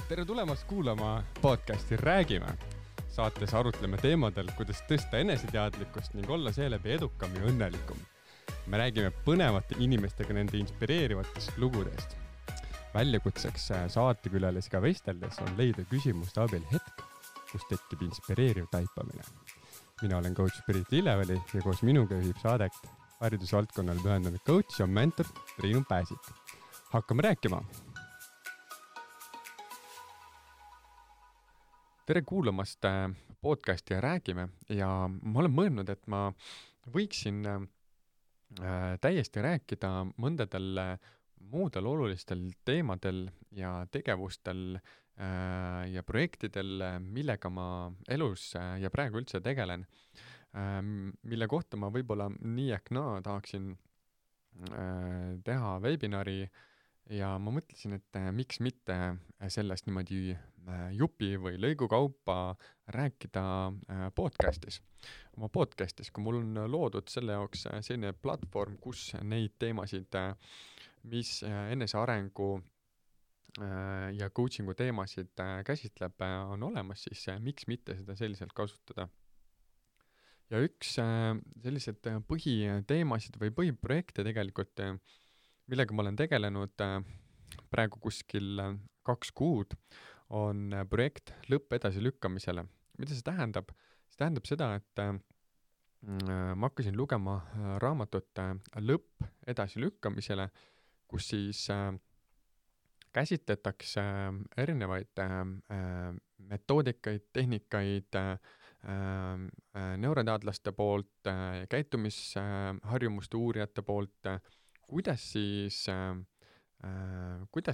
Tere tulemast kuulama podcasti Räägime. Saates arutleme teemadel, kuidas tõsta eneseteadlikkust ning olla seeläbi edukam ja õnnelikum. Me räägime põnevate inimestega nende inspireerivatest lugudest. Väljakutseks saatekülalisiga vesteldes on leida küsimuste abil hetk, kus tekib inspireeriv taipamine. Mina olen coach Pirit Illeveli ja koos minuga juhib saadet haridusvaldkonnale pühendunud coach ja mentor Triinu Pääsik. Hakkame rääkima! Tere kuulamast podcasti ja Räägime ja ma olen mõelnud, et ma võiksin täiesti rääkida mõndadel muudel olulistel teemadel ja tegevustel ja projektidel, millega ma elus ja praegu üldse tegelen, mille kohta ma võib-olla nii ehk naa tahaksin teha webinari ja ma mõtlesin, et miks mitte sellest niimoodi jupi või lõigu kaupa rääkida podcastis. Oma podcastis, kui mul on loodud selle jaoks selline platvorm, kus neid teemasid, mis enesearengu ja coachingu teemasid käsitleb, on olemas, siis miks mitte seda selliselt kasutada. Ja üks sellised põhiteemasid või põhiprojekte tegelikult, millega ma olen tegelenud praegu kuskil 2 kuud, on projekt lõpp edasilükkamisele. Mida see tähendab? See tähendab seda, et ma hakkasin lugema raamatut lõpp edasilükkamisele, kus siis käsitletakse erinevaid metoodikaid, tehnikaid neuroteadlaste poolt, käitumisharjumuste uurijate poolt, kuidas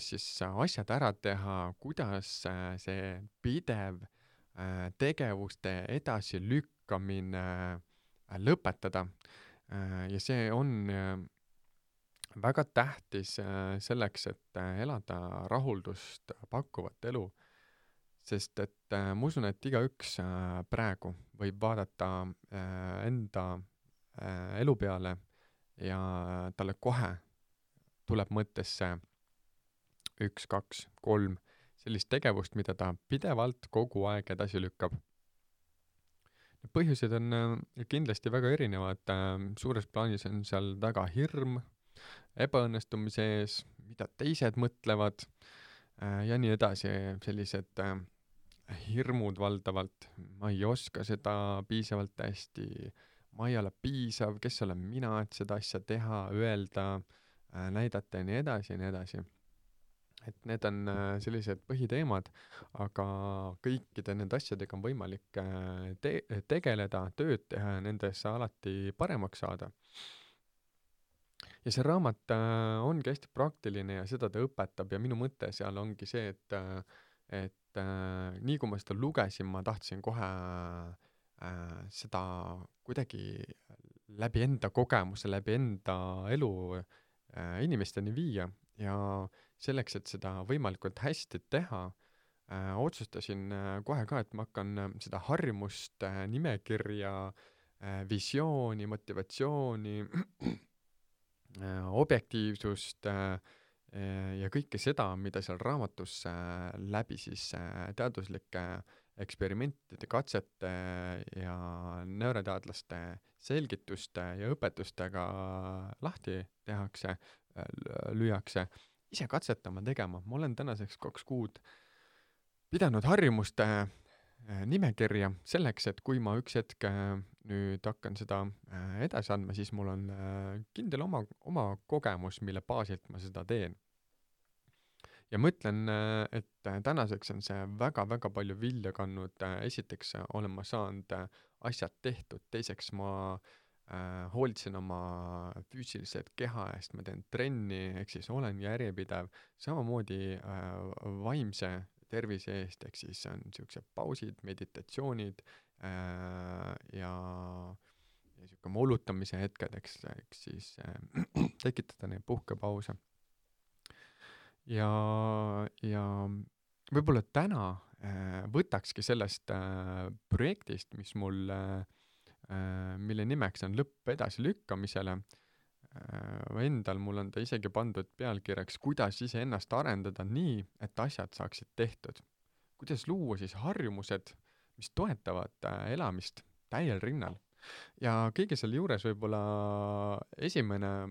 siis asjad ära teha, kuidas see pidev tegevuste edasilükkamine lõpetada. Ja see on väga tähtis selleks, et elada rahuldust pakkuvat elu, sest et ma usun, et igaüks praegu võib vaadata enda elu peale ja talle kohe tuleb mõttesse 1, 2, 3 sellist tegevust, mida ta pidevalt kogu aeg edasi lükkab. Põhjused on kindlasti väga erinevad. Suures plaanis on seal taga hirm, ebaõnnestumise ees, mida teised mõtlevad ja nii edasi. Sellised hirmud valdavalt. Ma ei oska seda piisavalt hästi. Ma ei ole piisav, kes olen mina, et seda asja teha, öelda, näidata ja nii edasi ja nii edasi. Et need on sellised põhiteemad, aga kõikide nende asjadega on võimalik tegeleda, tööd teha ja nendesse alati paremaks saada. Ja see raamat ongi hästi praktiline ja seda ta õpetab ja minu mõte seal ongi see, et nii kui ma seda lugesin, ma tahtsin kohe seda kuidagi läbi enda kogemuse, läbi enda elu inimesteni viia ja selleks, et seda võimalikult hästi teha, otsustasin kohe ka, et ma hakkan seda harjumust, nimekirja, visiooni, motivatsiooni, objektiivsust ja kõike seda, mida seal raamatus läbi siis teaduslike eksperimentide, katsete ja neuroteadlaste selgituste ja õpetustega lahti tehakse, lüüakse, ise katsetama tegema. Ma olen tänaseks 2 kuud pidanud harjumuste nimekirja selleks, et kui ma üks hetk nüüd hakkan seda edasi andma, siis mul on kindel oma kogemus, mille baasilt ma seda teen. Ja mõtlen, et tänaseks on see väga-väga palju vilja kandnud. Esiteks olen ma saanud asjad tehtud, teiseks ma hoolitsen oma füüsilised keha eest, ma teen trenni, ehk siis olen järjepidev, samamoodi vaimse tervise eest, ehk siis on niisugused pausid, meditatsioonid ja niisugune moolutamise hetked, ehk siis tekitada neid puhkepause. Ja võib-olla täna võtakski sellest projektist, mis mul, mille nimeks on lõpp edasilükkamisele, endal mul on ta isegi pandud pealkirjaks, kuidas iseennast arendada nii, et asjad saaksid tehtud. Kuidas luua siis harjumused, mis toetavad elamist täiel rinnal. Ja kõige selle juures võib-olla esimene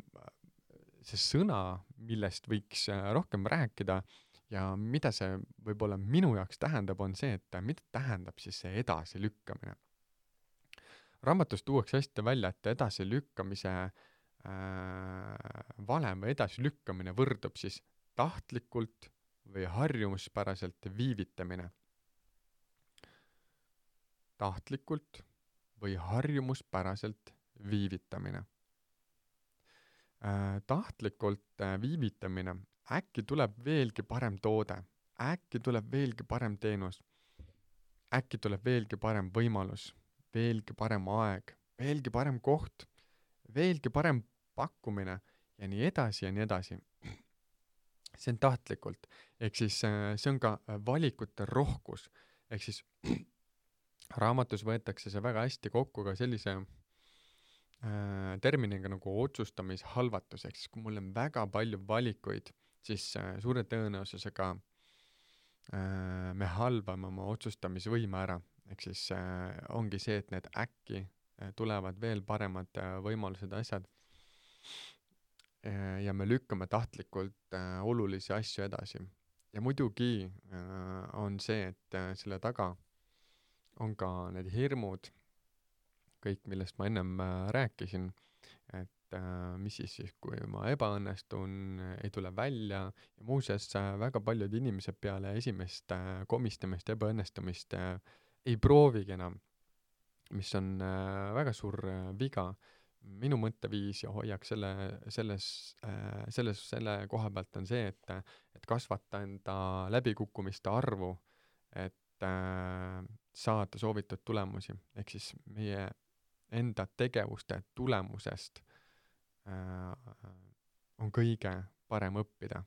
see sõna, millest võiks rohkem rääkida ja mida see võib-olla minu jaoks tähendab, on see, et mida tähendab siis see edasilükkamine. Raamatus tuuakse hästi välja, et edasilükkamise valem või edasilükkamine võrdub siis tahtlikult või harjumuspäraselt viivitamine. Tahtlikult või harjumuspäraselt viivitamine. Tahtlikult viivitamine, äkki tuleb veelgi parem toode, äkki tuleb veelgi parem teenus, äkki tuleb veelgi parem võimalus, veelgi parem aeg, veelgi parem koht, veelgi parem pakkumine ja nii edasi ja nii edasi. See on tahtlikult, ehk siis see on ka valikute rohkus, ehk siis raamatus võetakse see väga hästi kokku ka sellise terminiga nagu otsustamishalvatus, ehk siis kui mul on väga palju valikuid, siis suure tõenäosusega me halvame oma otsustamisvõime ära, ehk siis ongi see, et need äkki tulevad veel paremad võimalused asjad ja me lükkame tahtlikult olulisi asju edasi. Ja muidugi on see, et selle taga on ka need hirmud, kõik, millest ma ennem rääkisin, et mis siis, kui ma ebaõnnestun, ei tule välja ja muuseas väga paljud inimesed peale esimest komistamist ja ebaõnnestumist ei proovigi enam, mis on väga suur viga. Minu mõtteviis ja hoiak selle koha pealt on see, et kasvata enda läbikukkumiste arvu, et saada soovitud tulemusi. Ehk siis meie enda tegevuste tulemusest on kõige parem õppida.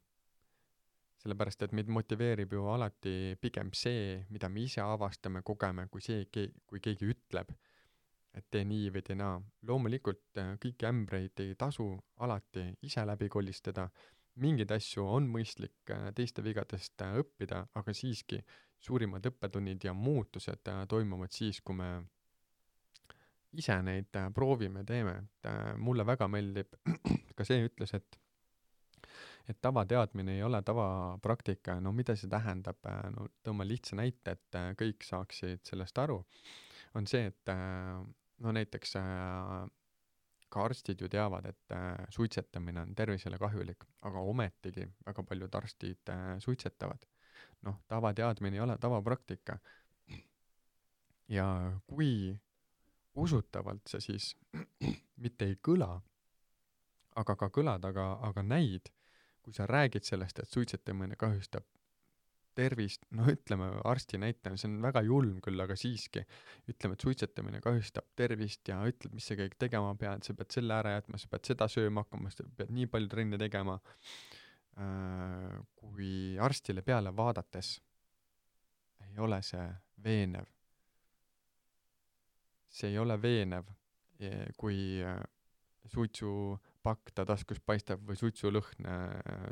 Sellepärast, et meid motiveerib ju alati pigem see, mida me ise avastame, kogeme, kui see, kui keegi ütleb, et tee nii või tee naa. Loomulikult kõiki ämbreid ei tasu alati ise läbi kolistada. Mingid asju on mõistlik teiste vigadest õppida, aga siiski suurimad õppetunnid ja muutused toimuvad siis, kui me ise neid proovime, teeme. Mulle väga meeldib ka see ütles, et tavateadmine ei ole tavapraktika. No mida see tähendab? No tõmba lihtsa näite, et kõik saaksid sellest aru. On see, et no näiteks ka arstid ju teavad, et suitsetamine on tervisele kahjulik, aga ometigi väga paljud arstid suitsetavad. Noh, tavateadmine ei ole tavapraktika. Ja kui usutavalt see siis mitte ei kõla, aga ka kõlad, aga näid, kui sa räägid sellest, et suitsetamine kahjustab tervist, no ütleme arsti näitena, see on väga julm küll, aga siiski ütleme, et suitsetamine kahjustab tervist ja ütled, mis sa kõik tegema pead, sa pead selle ära jätma, sa pead seda sööma hakkama, sa pead nii palju trenni tegema. Kui arstile peale vaadates ei ole see veenev. See ei ole veenev, kui suitsupakk ta taskus paistab või suitsulõhn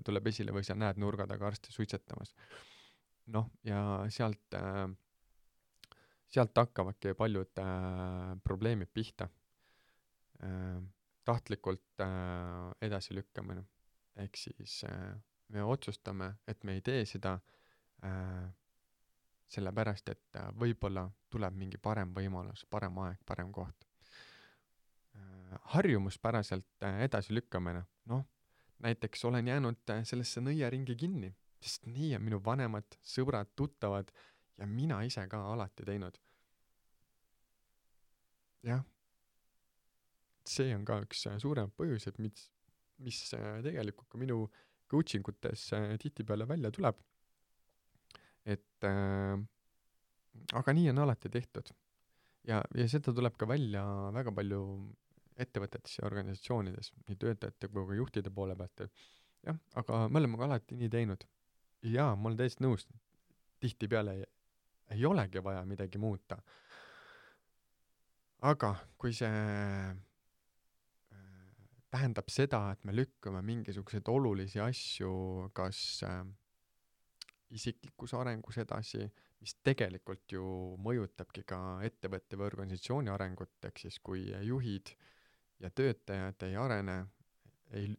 tuleb esile või sa näed nurga taga arsti suitsetamas. Noh, ja sealt hakkavadki paljud probleemid pihta. Tahtlikult edasilükkamine. Ehk siis me otsustame, et me ei tee seda sellepärast, et võib-olla tuleb mingi parem võimalus, parem aeg, parem koht. Harjumuspäraselt edasilükkamine. Noh, näiteks olen jäänud sellesse nõiaringi kinni, sest nii on minu vanemad, sõbrad, tuttavad ja mina ise ka alati teinud. Jah, see on ka üks suurem põhjus, et mis tegelikult ka minu coachingutes tihtipeale välja tuleb. Et aga nii on alati tehtud. Ja seda tuleb ka välja väga palju ettevõtetes ja organisatsioonides, nii töötajate kui ka juhtide poole pealt. Jah, aga me oleme ka alati nii teinud. Ja ma olen täiesti nõus, tihtipeale ei olegi vaja midagi muuta. Aga kui see tähendab seda, et me lükkame mingisuguseid olulisi asju kas isiklikus arengus edasi, mis tegelikult ju mõjutabki ka ettevõtte või organisatsiooni arengut, ehk siis kui juhid ja töötajad ei arene ei,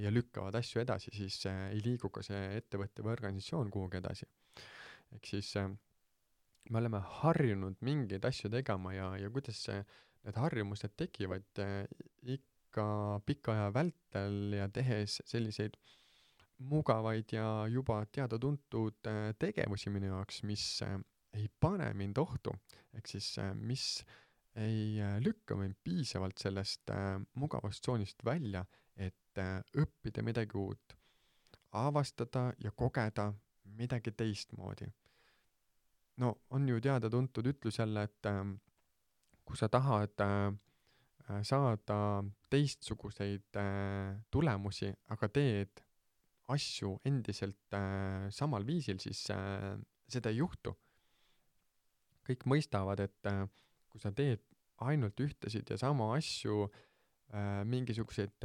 ja lükkavad asju edasi, siis ei liigu ka see ettevõtte või organisatsioon kuhugi edasi. Ehk siis me oleme harjunud mingeid asju tegema ja kuidas need harjumused tekivad ikka pika aja vältel ja tehes selliseid mugavaid ja juba teada-tuntud tegevusi minu jaoks, mis ei pane mind ohtu, ehk siis mis ei lükka mind piisavalt sellest mugavast tsoonist välja, et õppida midagi uut, avastada ja kogeda midagi teistmoodi. No on ju teada-tuntud ütlus jälle, et kui sa tahad saada teistsuguseid tulemusi, aga teed asju endiselt samal viisil, siis seda ei juhtu. Kõik mõistavad, et kui sa teed ainult ühtesid ja sama asju, mingisuguseid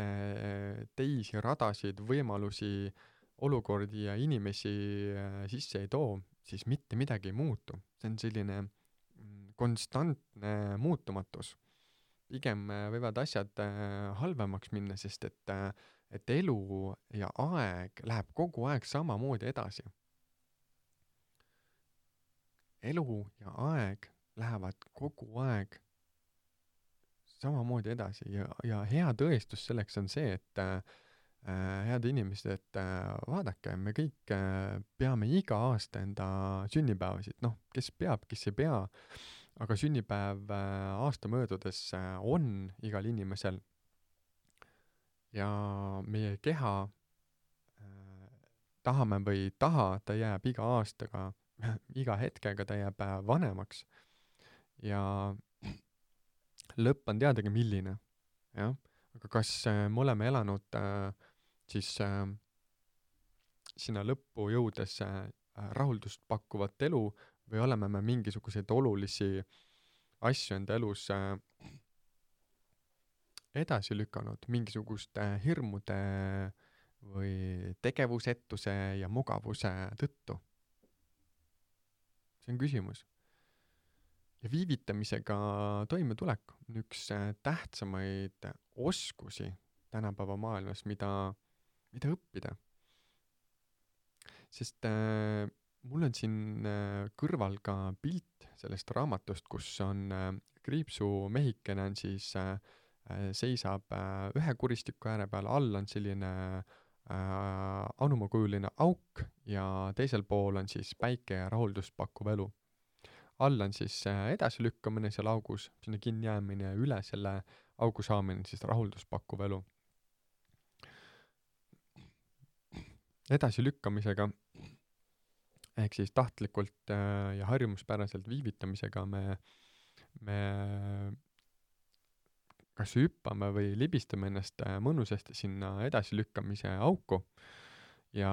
teisi radasid, võimalusi, olukordi ja inimesi sisse ei too, siis mitte midagi ei muutu. See on selline konstantne muutumatus. Pigem võivad asjad halvemaks minna, sest et elu ja aeg läheb kogu aeg samamoodi edasi. Elu ja aeg lähevad kogu aeg samamoodi edasi ja hea tõestus selleks on see, et head inimesed, et vaadake, me kõik peame iga aasta enda sünnipäevasid, noh, kes peab, kes ei pea, aga sünnipäev aasta möödudes on igal inimesel ja meie keha tahame või ei taha, ta jääb iga aastaga, iga hetkega ta jääb vanemaks ja lõpp on teadagi milline, jah, aga kas me oleme elanud siis sinna lõppu jõudes rahuldust pakkuvat elu või oleme me mingisuguseid olulisi asju enda elus edasi lükanud mingisuguste hirmude või tegevusetuse ja mugavuse tõttu? See on küsimus. Ja viivitamisega toimetulek on üks tähtsamaid oskusi tänapäeva maailmas, mida õppida. Sest mul on siin kõrval ka pilt sellest raamatust, kus on kriipsumehikene on siis seisab ühe kuristiku ääre peal, all on selline anumakujuline auk ja teisel pool on siis päike ja rahuldust pakkuv elu. All on siis edasilükkamine seal augus, sinna kinni jäämine ja üle selle augu saamine siis rahuldust pakkuv elu. Edasilükkamisega ehk siis tahtlikult ja harjumuspäraselt viivitamisega me kas hüppame või libistame ennast mõnusasti sinna edasilükkamise auku ja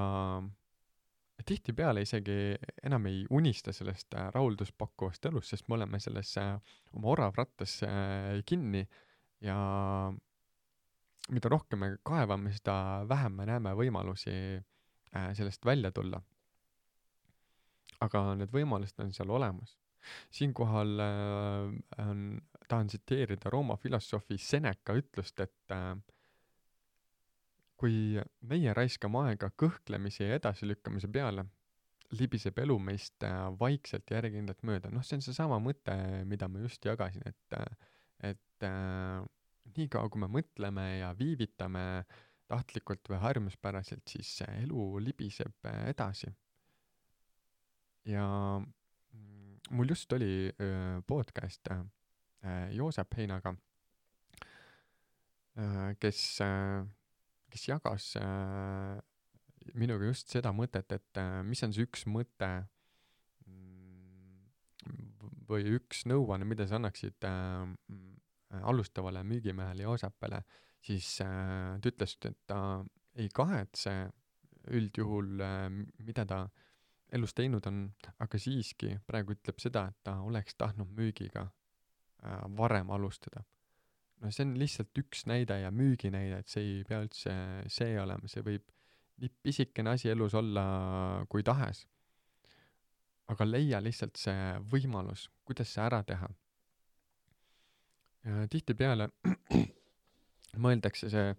tihtipeale isegi enam ei unista sellest rahuldust pakkuvast elust, sest me oleme selles oma oravrattas kinni ja mida rohkem me kaevame, seda vähem me näeme võimalusi sellest välja tulla. Aga need võimalused on seal olemas. Siinkohal tahan tsiteerida Rooma filosoofi Seneca ütlust, et kui meie raiskame aega kõhklemise ja edasilükkamise peale, libiseb elu meist vaikselt ja järjekindlalt mööda. Noh, see on see sama mõte, mida ma just jagasin, et nii kaua, kui me mõtleme ja viivitame tahtlikult või harjumuspäraselt, siis elu libiseb edasi. Ja mul just oli podcast Joosep Heinaga, kes jagas minuga just seda mõtet, et mis on see üks mõte või üks nõuanne, mida sa annaksid alustavale müügimehele Joosepele, siis ta ütles, et ta ei kahetse üldjuhul, mida ta elus teinud on, aga siiski praegu ütleb seda, et ta oleks tahtnud müügiga varem alustada. no see on lihtsalt üks näide ja müüginäide, et see ei pea üldse see olema, see võib nii pisikene asi elus olla kui tahes. Aga leia lihtsalt see võimalus, kuidas see ära teha. Ja tihtipeale mõeldakse see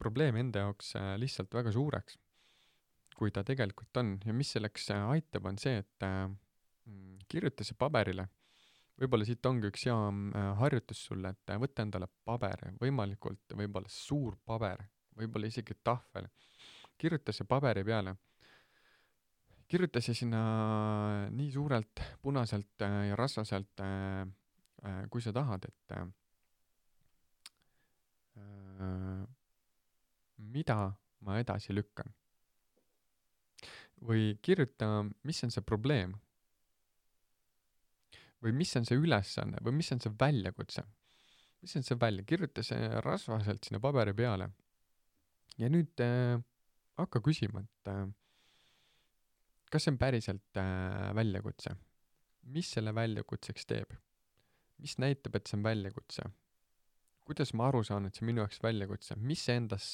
probleem enda jaoks lihtsalt väga suureks, kui ta tegelikult on. Ja mis selleks aitab, on see, et kirjuta see paberile. Võib-olla siit ongi üks hea harjutus sulle, et võtta endale paber, võimalikult võib-olla suur paber, võib-olla isegi tahvel. Kirjuta see paberi peale. Kirjuta see sinna nii suurelt, punaselt ja rasvaselt, kui sa tahad, et mida ma edasi lükkan. Või kirjuta, mis on see probleem. Või mis on see ülesanne, või mis on see väljakutse. Mis on see välja, kirjuta see rasvaselt sinna paberi peale. Ja nüüd hakka küsima, et kas see on päriselt väljakutse? Mis selle väljakutseks teeb? Mis näitab, et see on väljakutse? Kuidas ma aru saan, et see minu jaoks väljakutse? Mis see endas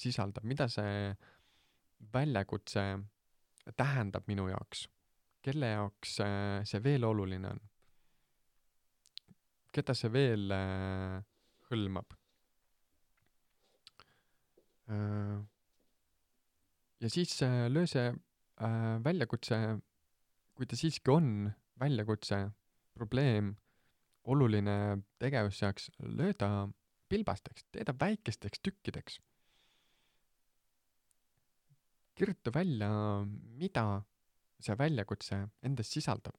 sisaldab? Mida see väljakutse tähendab minu jaoks? Kelle jaoks see veel oluline on? Keda see veel hõlmab? Ja siis löö see väljakutse, kui ta siiski on väljakutse, probleem, oluline tegevus saaks, löö ta pilbasteks, tee ta väikesteks tükkideks. Kirjuta välja, mida see väljakutse endas sisaldab.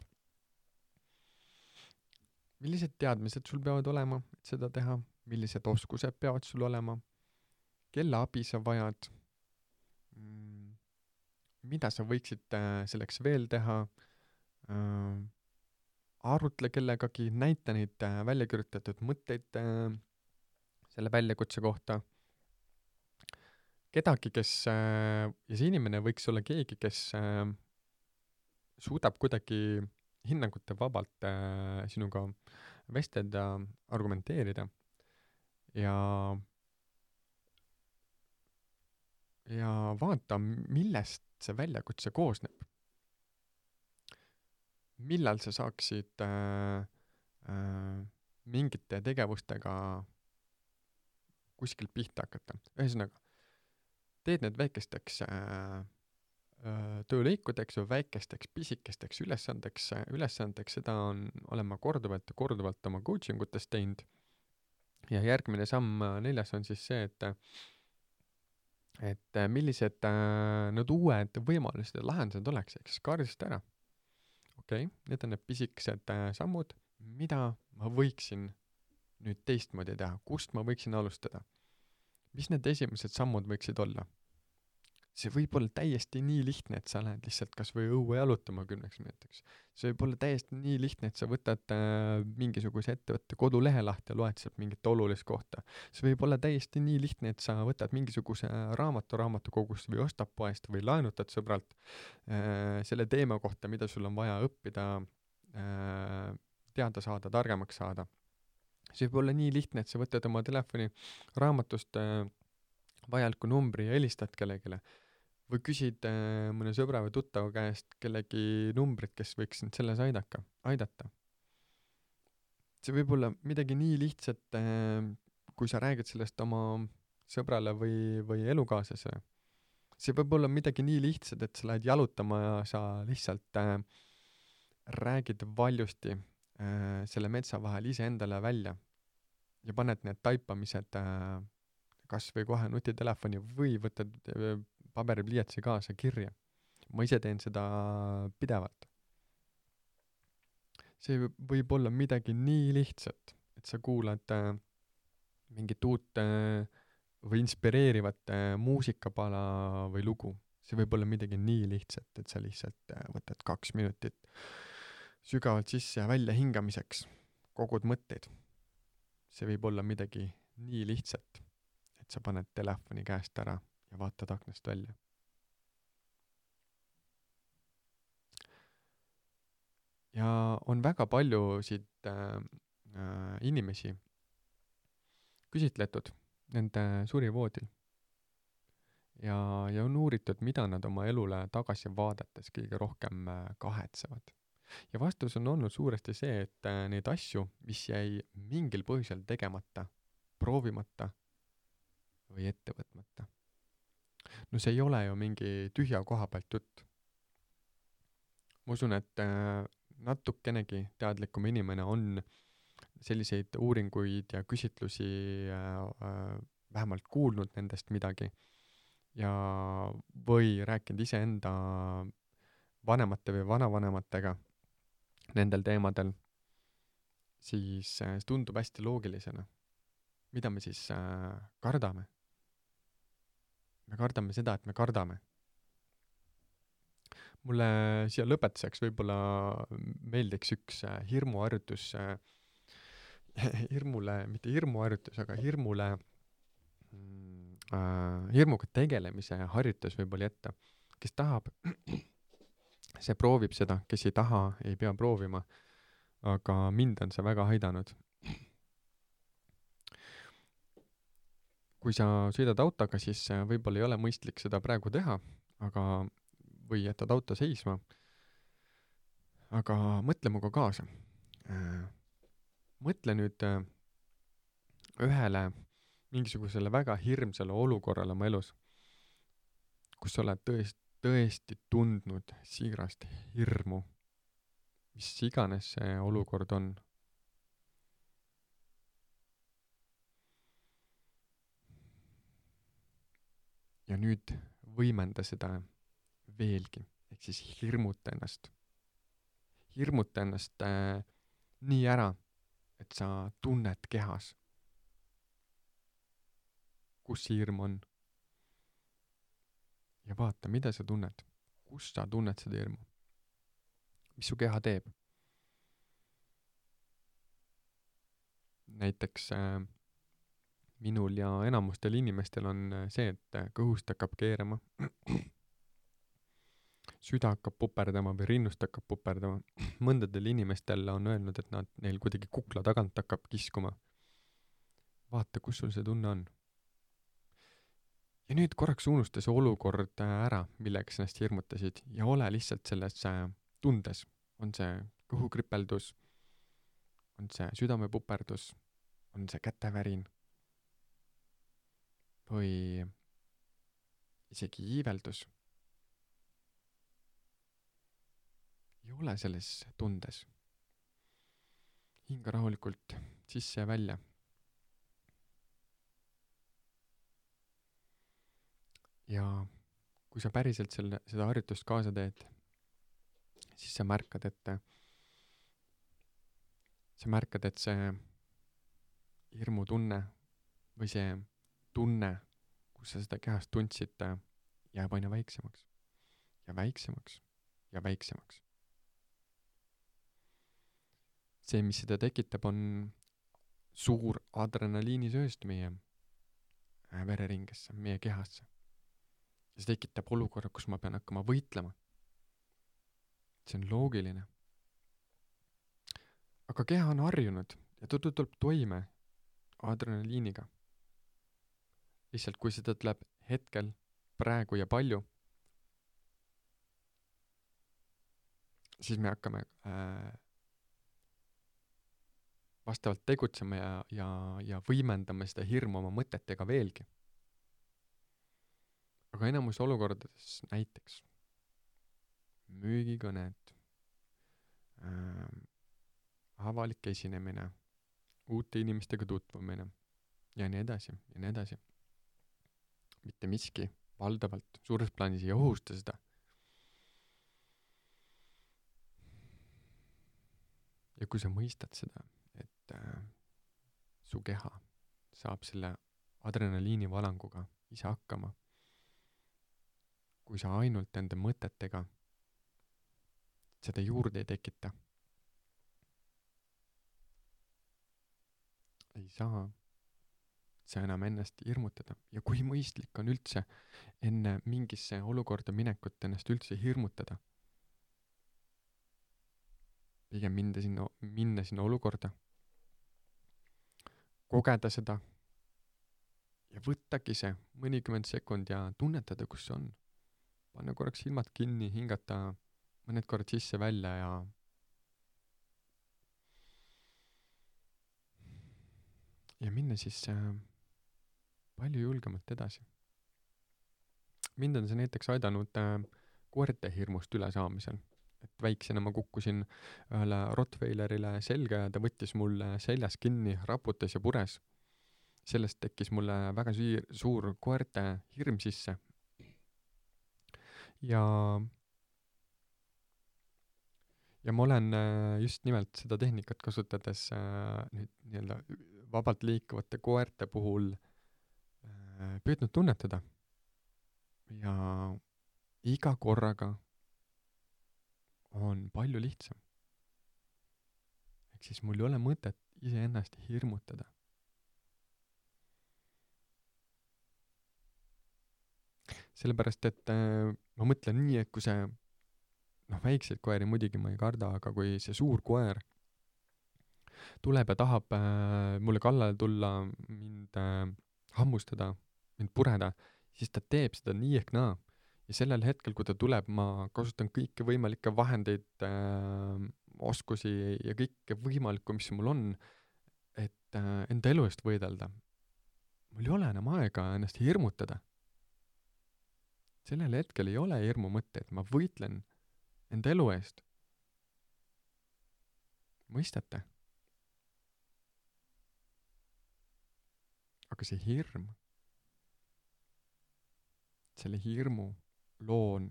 Millised teadmised sul peavad olema, et seda teha? Millised oskused peavad sul olema? Kelle abi sa vajad? Mida sa võiksid selleks veel teha? Arutle kellegagi, näita neid välja kirjutatud mõtteid selle väljakutse kohta. Kedagi, kes, ja see inimene võiks olla keegi, kes suudab kuidagi hinnangute vabalt sinuga vestelda, argumenteerida ja vaata, millest see väljakutse koosneb. Millal sa saaksid mingite tegevustega kuskilt pihta hakata. Ühesõnaga, teed need väikesteks töölõikudeks või väikesteks pisikesteks ülesandeks, seda olen ma korduvalt oma coaching utes teinud. Ja järgmine samm 4 on siis see, et millised need uued võimalused ja lahendused oleks, eks kaardista ära. Okei, need on need pisikesed sammud, mida ma võiksin nüüd teistmoodi teha, kust ma võiksin alustada. Mis need esimesed sammud võiksid olla? See võib olla täiesti nii lihtne, et sa lähed lihtsalt kas või õue jalutama 10 minutiks. See võib olla täiesti nii lihtne, et sa võtad mingisuguse ettevõtte kodulehe lahti ja loed sealt mingit olulist kohta. See võib olla täiesti nii lihtne, et sa võtad mingisuguse raamatukogust või ostad poest või laenutad sõbralt selle teema kohta, mida sul on vaja õppida, teada saada, targemaks saada. See võib olla nii lihtne, et sa võtad oma telefoni raamatust vajaliku numbri ja helistad kellegile. Või küsid mõne sõbra või tuttava käest kellegi numbrit, kes võiks sind selles aidata. See võib olla midagi nii lihtsat, kui sa räägid sellest oma sõbrale või elukaaslasele. See võib olla midagi nii lihtsat, et sa lähed jalutama ja sa lihtsalt räägid valjusti selle metsa vahel ise endale välja ja paned need taipamised kas või kohe nutitelefoni või võtad paberipliiatsi kaasa kirja. Ma ise teen seda pidevalt. See võib olla midagi nii lihtsat, et sa kuulad mingit uut või inspireerivat muusikapala või lugu. See võib olla midagi nii lihtsat, et sa lihtsalt võtad 2 minutit sügavalt sisse ja välja hingamiseks, kogud mõtteid. See võib olla midagi nii lihtsat, et sa paned telefoni käest ära ja vaatad aknast välja. Ja on väga paljusid inimesi, küsitletud nende surivoodil ja on uuritud, mida nad oma elule tagasi vaadates kõige rohkem kahetsevad. Ja vastus on olnud suuresti see, et neid asju, mis jäi mingil põhjusel tegemata, proovimata või ette võtmata. No see ei ole ju mingi tühja koha pealt jutt. Ma usun, et natukenegi teadlikum inimene on selliseid uuringuid ja küsitlusi vähemalt kuulnud nendest midagi ja või rääkinud iseenda vanemate või vanavanematega nendel teemadel, siis see tundub hästi loogilisena. Mida me siis kardame? Me kardame seda, et me kardame. Mulle siia lõpetuseks võib-olla meeldiks üks hirmuharjutus, mitte hirmuharjutus, aga hirmuga tegelemise harjutus võib-olla jätta. Kes tahab, see proovib seda, kes ei taha, ei pea proovima, aga mind on see väga aidanud. Kui sa sõidad autoga, siis võib-olla ei ole mõistlik seda praegu teha, või jätad auto seisma, aga mõtle muga kaasa. Mõtle nüüd ühele mingisugusele väga hirmsale olukorrale oma elus, kus sa oled tõesti tundnud siirast hirmu, mis iganes see olukord on. Ja nüüd võimenda seda veelgi, ehk siis hirmuta ennast. Hirmuta ennast nii ära, et sa tunned kehas, kus see hirm on. Ja vaata, mida sa tunned, kus sa tunned seda hirmu, mis su keha teeb. Näiteks minul ja enamustel inimestel on see, et kõhust hakkab keerama, süda hakkab puperdama või rinnust hakkab puperdama. Mõndadel inimestel on öelnud, et neil kuidagi kukla tagant hakkab kiskuma. Vaata, kus sul see tunne on. Ja nüüd korraks unusta see olukord ära, millega sa ennast hirmutasid ja ole lihtsalt selles tundes. On see kõhukripeldus, on see südamepuperdus, on see kätevärin või isegi iiveldus. Ja ole selles tundes. Hinga rahulikult sisse ja välja. Ja kui sa päriselt seda harjutust kaasa teed, siis sa märkad, et see hirmutunne või see tunne, kus sa seda kehast tundsid, jääb aina väiksemaks ja väiksemaks ja väiksemaks. See, mis seda tekitab, on suur adrenaliinisööst meie vereringesse, meie kehasse. Ja see tekitab olukorra, kus ma pean hakkama võitlema. See on loogiline. Aga keha on harjunud ja ta tuleb toime adrenaliiniga. Lihtsalt kui seda tuleb hetkel, praegu ja palju, siis me hakkame vastavalt tegutsema ja võimendame seda hirmu oma mõtetega veelgi. Aga enamus olukordades näiteks müügikõned, avalik esinemine, uute inimestega tutvumine ja nii edasi ja nii edasi. Mitte miski valdavalt suures plaanis ei ohusta seda. Ja kui sa mõistad seda, et su keha saab selle adrenaliini valanguga ise hakkama, kui sa ainult enda mõtetega seda juurde ei tekita, ei saa sa enam ennast hirmutada. Ja kui mõistlik on üldse enne mingisse olukorda minekut ennast üldse hirmutada, pigem minna sinna olukorda, kogeda seda, ja võttagi see mõnikümmend sekund ja tunnetada, kus see on. Panna korraks silmad kinni, hingata mõned korrad sisse-välja ja minna siis palju julgemalt edasi. Mind on see näiteks aidanud koerte hirmust üle saamisel. Et väiksena ma kukkusin ühele Rottweilerile selga ja ta võttis mulle seljas kinni, raputas ja pures. Sellest tekkis mulle väga suur koerte hirm sisse. Ja ma olen just nimelt seda tehnikat kasutades nüüd nii-öelda vabalt liikuvate koerte puhul püüdnud tunnetada. Ja iga korraga on palju lihtsam. Ehk siis mul ei ole mõtet iseennast hirmutada. Sellepärast, et ma mõtlen nii, et kui see, väikseid koeri muidugi ma ei karda, aga kui see suur koer tuleb ja tahab mulle kallale tulla, mind hammustada, mind pureda, siis ta teeb seda nii ehk naa. Ja sellel hetkel, kui ta tuleb, ma kasutan kõiki võimalikke vahendeid, oskusi ja kõike võimalikku, mis mul on, et enda elu eest võidelda. Mul ei ole enam aega ennast hirmutada. Sellel hetkel ei ole hirmu mõtte, et ma võitlen enda elu eest. Mõistate? Aga see hirm, selle hirmu loon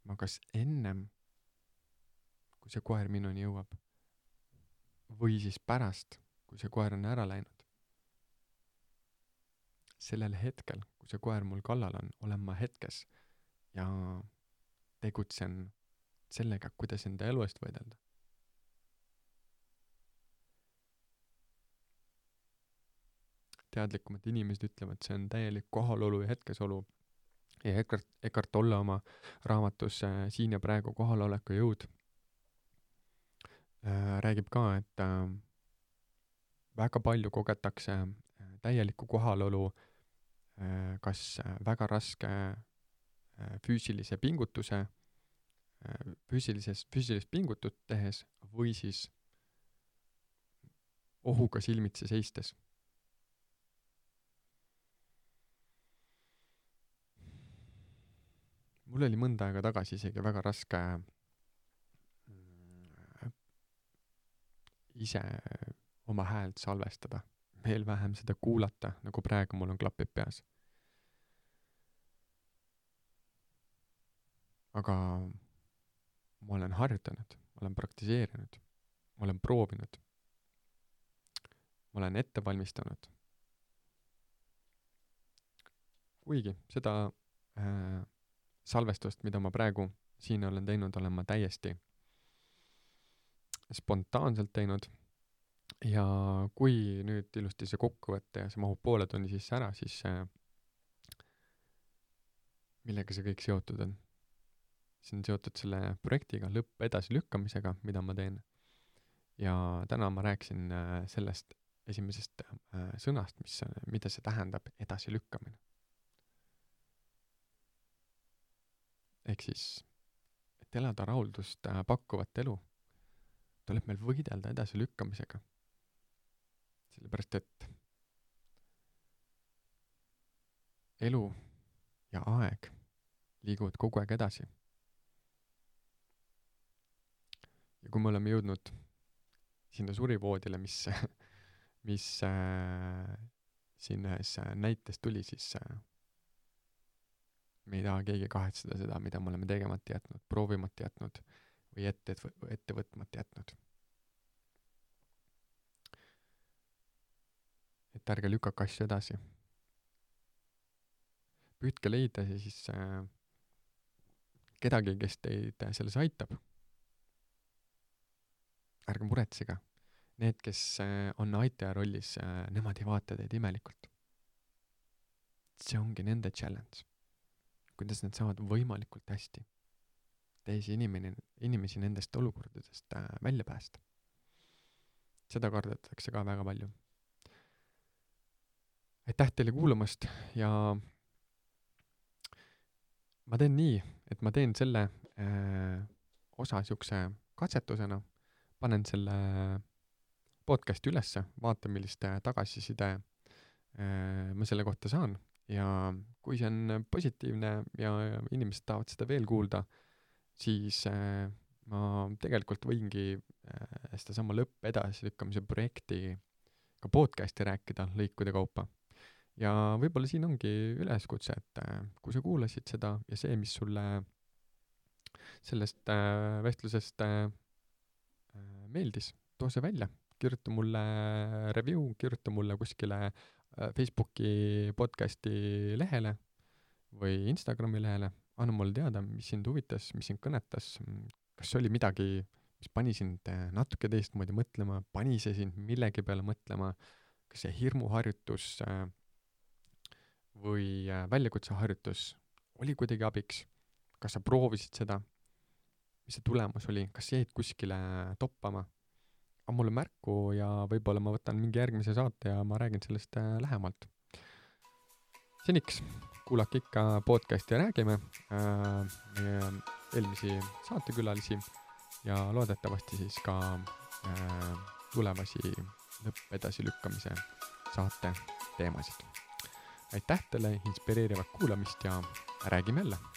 ma kas ennem, kui see koer minuni jõuab, või siis pärast, kui see koer on ära läinud. Sellel hetkel, kui see koer mul kallal on, olen ma hetkes ja tegutsen sellega, kuidas enda elu eest võidelda. Teadlikumad inimesed ütlevad, see on täielik kohalolu ja hetkesolu. Ja Eckhart Tolle oma raamatus Siin ja praegu kohaloleku jõud räägib ka, et väga palju kogetakse täielikku kohalolu kas väga raske füüsilise pingutuse, füüsilist pingutut tehes või siis ohuga silmitsi seistes. Mul oli mõnda aega tagasi isegi väga raske ise oma häält salvestada, veel vähem seda kuulata, nagu praegu mul on klapid peas. Aga ma olen harjutanud, ma olen praktiseerinud, ma olen proovinud, ma olen ette valmistanud. Kuigi seda salvestust, mida ma praegu siin olen teinud, olen ma täiesti spontaanselt teinud. Ja kui nüüd ilusti see kokkuvõtte ja see mahub poole tunni sisse ära, siis millega see kõik seotud on? See on seotud selle projektiga, lõpp edasilükkamisega, mida ma teen. Ja täna ma rääkisin sellest esimesest sõnast, mida see tähendab edasilükkamine. Ehk siis, et elada rahuldust pakkuvat elu, tuleb meil võidelda edasilükkamisega. Sellepärast, et elu ja aeg liiguvad kogu aeg edasi. Ja kui me oleme jõudnud sinna surivoodile, mis siin ühes näites tuli, siis me ei taha keegi kahetseda seda, mida me oleme tegemata jätnud, proovimata jätnud või ette võtmata jätnud. Et ärge lükake asju edasi. Püüdke leida siis kedagi, kes teid selles aitab. Ärge muretsega. Need, kes on aitaja rollis, nemad ei vaata teid imelikult. See ongi nende challenge. Kuidas nad saavad võimalikult hästi teisi inimesi nendest olukordadest välja päästa. Seda kardetakse ka väga palju. aitäh teile kuulamast ja ma teen nii, et ma teen selle osa siukse katsetusena, panen selle podcasti ülesse, vaatan, millist tagasiside ma selle kohta saan ja kui see on positiivne ja inimesed tahavad seda veel kuulda, siis ma tegelikult võingi sedasama lõpp edasilükkamise projekti ka podcasti rääkida lõikude kaupa. Ja võib-olla siin ongi üleskutse, et kui sa kuulasid seda ja see, mis sulle sellest vestlusest meeldis, too see välja, kirjuta mulle review, kirjuta mulle kuskile Facebooki podcasti lehele või Instagrami lehele, anna mulle teada, mis sind huvitas, mis sind kõnetas, kas oli midagi, mis pani sind natuke teistmoodi mõtlema, pani see sind millegi peale mõtlema, kas see hirmuharjutus või väljakutseharjutus oli kuidagi abiks, kas sa proovisid seda, mis see tulemus oli, kas jäid kuskile toppama, on mulle märku ja võib-olla ma võtan mingi järgmise saate ja ma räägin sellest lähemalt. Seniks kuulake ikka podcasti ja räägime meie eelmisi saatekülalisi ja loodetavasti siis ka tulevasi lõppedasilükkamise saate teemasid. Aitäh teile inspireerivat kuulamist ja räägime jälle!